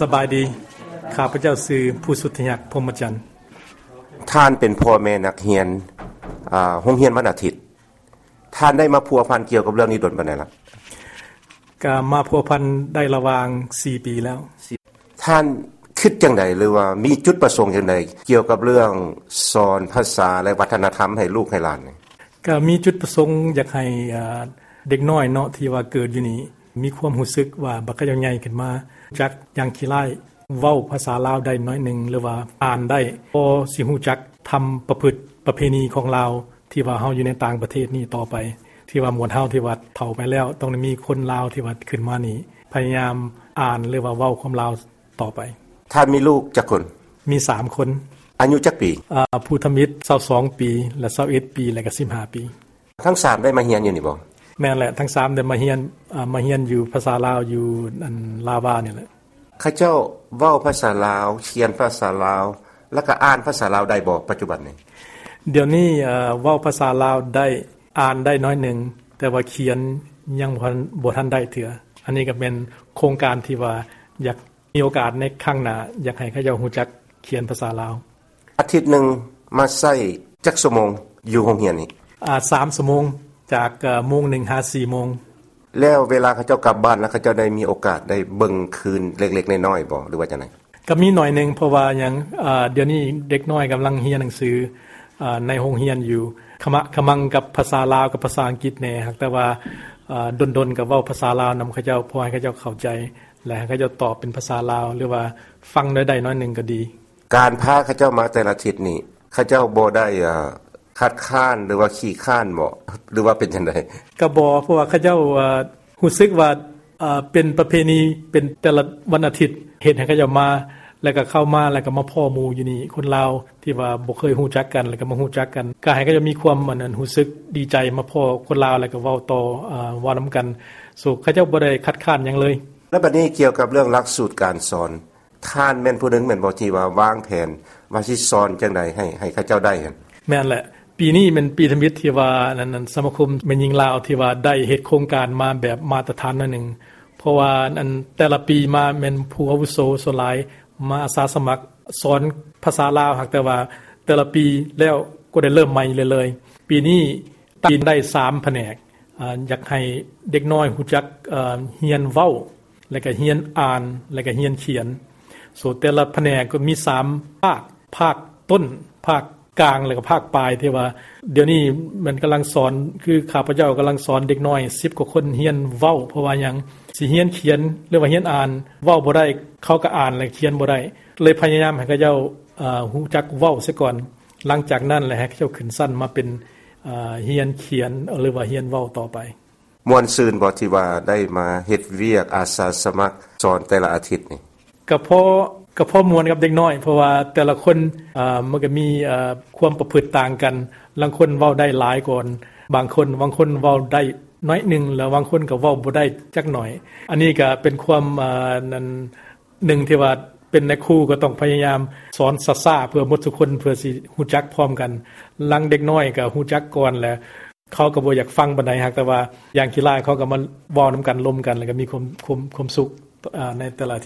ສະບາຍດີ. ຂ້າພະເຈົ້າຊື່ ພູສຸດທະຍັກ ພົມມະຈັນ. ທ່ານເປັນພໍ່ແມ່ນັກຮຽນ ອາ ໂຮງຮຽນວັນອາທິດ. ທ່ານໄດ້ມາພົວພັນກ່ຽວກັບເລື່ອງນີ້ດົນປານໃດລະ? ກະມາພົວພັນໄດ້ລະຫວ່າງສີ່ປີແລ້ວ. ທ່ານຄິດຈັ່ງໃດ ຫຼືວ່າມີຈຸດປະສົງຈັ່ງໃດ ກ່ຽວກັບເລື່ອງສອນພາສາ ແລະ ວັດທະນະທຳໃຫ້ລູກໃຫ້ຫຼານນີ້? ກະມີຈຸດປະສົງຢາກໃຫ້ ເອີ ເດັກນ້ອຍເນາະ ທີ່ວ່າເກີດຢູ່ນີ້ ມີຄວາມຮູ້ສຶກວ່າ ບັດເຂົາເຈົ້າໃຫຍ່ຂຶ້ນມາ ຮູ້ຈັກຢ່າງຂີ້ລ້າຍ ເວົ້າພາສາລາວໄດ້ໜ້ອຍໜຶ່ງ ຫຼືວ່າອ່ານໄດ້ ພໍຊິຮູ້ຈັກທຳປະພຶດປະເພນີຂອງລາວ ທີ່ວ່າເຮົາຢູ່ໃນຕ່າງປະເທດນີ້ຕໍ່ໄປ ທີ່ວ່າໝວດເຮົາທີ່ວ່າເຖົ້າໄປແລ້ວ ຕ້ອງໄດ້ມີຄົນລາວທີ່ວ່າຂຶ້ນມານີ້ ພະຍາຍາມອ່ານ ຫຼືວ່າເວົ້າຄວາມລາວຕໍ່ໄປ. ທ່ານມີລູກຈັກຄົນ? ມີສາມຄົນ. ອາຍຸຈັກປີ? ອາ ຜູ້ທຳອິດຊາວສອງປີ ແລະ ຊາວເອັດປີ ແລະ ກະສິບຫ້າປີ. ທັງສາມໄດ້ມາຮຽນຢູ່ນີ້ບໍ່? ແມ່ນແຫຼະ ທັງສາມໄດ້ມາຮຽນ ອາ ມາຮຽນຢູ່ພາສາລາວ ຢູ່ອັນລາວານີ້ແຫຼະ. ເຂົາເຈົ້າເວົ້າພາສາລາວ, ຂຽນພາສາລາວ ແລ້ວກະອ່ານພາສາລາວໄດ້ບໍ່ ປັດຈຸບັນນີ້? ດຽວນີ້ ເອີ ເວົ້າພາສາລາວໄດ້, ອ່ານໄດ້ໜ້ອຍໜຶ່ງ, ແຕ່ວ່າຂຽນຍັງບໍ່ທັນ, ບໍ່ທັນໄດ້ເທື່ອ. ອັນນີ້ກະແມ່ນໂຄງການທີ່ວ່າຢາກ ມີໂອກາດໃນຄັ້ງໜ້າ ຢາກໃຫ້ເຂົາເຈົ້າຮູ້ຈັກຂຽນພາສາລາວ. ອາທິດໜຶ່ງມາໃຊ້ຈັກຊົ່ວໂມງຢູ່ໂຮງຮຽນນີ້? ອາ ສາມຊົ່ວໂມງ ຈາກ ເອີ ໂມງໜຶ່ງຫາສີ່ໂມງ. ແລ້ວເວລາເຂົາເຈົ້າກັບບ້ານແລ້ວ ເຂົາເຈົ້າໄດ້ມີໂອກາດໄດ້ເບິ່ງຄືນເລັກໆນ້ອຍໆບໍ່ ຫຼືວ່າຈັ່ງໃດ? ກະມີໜ້ອຍໜຶ່ງ ເພາະວ່າຫຍັງ ອາ ດຽວນີ້ເດັກນ້ອຍກຳລັງຮຽນໜັງສື ອາ ໃນໂຮງຮຽນຢູ່ ຂະມະຂະມັງກັບພາສາລາວກັບພາສາອັງກິດແດ່ ຫາກແຕ່ວ່າ ອາ ດົນໆກະເວົ້າພາສາລາວນຳເຂົາເຈົ້າ ເພື່ອໃຫ້ເຂົາເຈົ້າເຂົ້າໃຈ ແລະ ໃຫ້ເຂົາເຈົ້າຕອບເປັນພາສາລາວ ຫຼືວ່າຟັງໄດ້ໜ້ອຍໜຶ່ງກະດີ. ການພາເຂົາເຈົ້າມາແຕ່ລະທິດນີ້ ເຂົາເຈົ້າບໍ່ໄດ້ ອາ ຄັດຄ້ານ ຫຼືວ່າຂີ້ຄ້ານບໍ່ ຫຼືວ່າເປັນຈັ່ງໃດ? ກະບໍ່ ເພາະວ່າເຂົາເຈົ້າ ອາ ຮູ້ສຶກວ່າ ເປັນປະເພນີ ເປັນແຕ່ລະວັນອາທິດ ເຮັດໃຫ້ເຂົາເຈົ້າມາ ແລ້ວກະເຂົ້າມາ ແລ້ວກະມາພໍ້ໝູ່ຢູ່ນີ້ ຄົນລາວທີ່ວ່າບໍ່ເຄີຍຮູ້ຈັກກັນ ແລ້ວກະມາຮູ້ຈັກກັນ ກະໃຫ້ເຂົາເຈົ້າມີຄວາມ ອັນ ອັນ ຮູ້ສຶກດີໃຈ ມາພໍ້ຄົນລາວ ແລ້ວກະເວົ້າຕໍ່ ອາ ເວົ້ານຳກັນ. ໂຊ ເຂົາເຈົ້າບໍ່ໄດ້ຄັດຄ້ານຫຍັງເລີຍ. ແລ້ວບັດນີ້ກ່ຽວກັບເລື່ອງຫຼັກສູດການສອນ ທ່ານແມ່ນຜູ້ໜຶ່ງແມ່ນບໍ່ ທີ່ວ່າວາງແຜນວ່າຊິສອນຈັ່ງໃດໃຫ້ ໃຫ້ເຂົາເຈົ້າໄດ້ຫັ້ນ? ແມ່ນແຫຼະ. ປີນີ້ແມ່ນປີທຳອິດທີ່ວ່າ ອັນ ອັນ ສະມາຄົມແມ່ຍິງລາວທີ່ວ່າໄດ້ເຮັດໂຄງການມາແບບມາດຕະຖານໜ້ອຍໜຶ່ງ ເພາະວ່າ ອັນ ແຕ່ລະປີມາແມ່ນຜູ້ອາວຸໂສສ່ວນຫຼາຍມາອາສາສະໝັກສອນພາສາລາວ ຫາກແຕ່ວ່າແຕ່ລະປີແລ້ວກໍໄດ້ເລີ່ມໃໝ່ເລື້ອຍໆ. ປີນີ້ຕັ້ງໄດ້ສາມພະແນກ ອາ ຢາກໃຫ້ເດັກນ້ອຍຮູ້ຈັກ ອາ ຮຽນເວົ້າ ແລ້ວກະຮຽນອ່ານ ແລ້ວກະຮຽນຂຽນ. ໂຊ ແຕ່ລະພະແນກກໍມີສາມພາກ ພາກຕົ້ນ ພາກກາງ ແລ້ວກະພາກປາຍ ທີ່ວ່າດຽວນີ້ມັນກຳລັງສອນ ຄືຂ້າພະເຈົ້າກຳລັງສອນເດັກນ້ອຍສິບກວ່າຄົນຮຽນເວົ້າ ເພາະວ່າຫຍັງ ຊິຮຽນຂຽນ ຫຼືວ່າຮຽນອ່ານ ເວົ້າບໍ່ໄດ້ ເຂົາກະອ່ານ ແລະ ຂຽນບໍ່ໄດ້ ເລີຍພະຍາຍາມໃຫ້ເຂົາເຈົ້າ ອາ ຮູ້ຈັກເວົ້າຊະກ່ອນ ຫຼັງຈາກນັ້ນແລ້ວໃຫ້ເຂົາເຈົ້າຂຶ້ນຊັ້ນມາເປັນ ອາ ຮຽນຂຽນ ຫຼືວ່າຮຽນເວົ້າຕໍ່ໄປ. ມ່ວນຊື່ນບໍ່ ທີ່ວ່າໄດ້ມາເຮັດວຽກອາສາສະໝັກສອນແຕ່ລະອາທິດນີ້? ກະພໍ ກະພໍມ່ວນກັບເດັກນ້ອຍ ເພາະວ່າແຕ່ລະຄົນ ອາ ມັນກະມີ ອາ ຄວາມປະພຶດຕ່າງກັນ ລາງຄົນເວົ້າໄດ້ຫຼາຍກວ່າບາງຄົນ ບາງຄົນເວົ້າໄດ້ໜ້ອຍໜຶ່ງ ແລ້ວບາງຄົນກະເວົ້າບໍ່ໄດ້ຈັກໜ້ອຍ. ອັນນີ້ກະເປັນຄວາມ ອາ ນັ້ນ ໜຶ່ງທີ່ວ່າເປັນນາຍຄູກໍຕ້ອງພະຍາຍາມສອນຊ້າໆ ເພື່ອໝົດທຸກຄົນ ເພື່ອຊິຮູ້ຈັກພ້ອມກັນ. ລາງເດັກນ້ອຍກໍຮູ້ຈັກກ່ອນແຫຼະ ເຂົາກໍບໍ່ຢາກຟັງປານໃດ ຫາກແຕ່ວ່າຢ່າງຂີ້ລ້າຍ ເຂົາກໍມາເວົ້ານຳກັນ ລົມກັນ ແລ້ວກໍມີຄວາມ ຄວາມ ຄວາມສຸກ ອາ ໃນແຕ່ລະອາທິດ.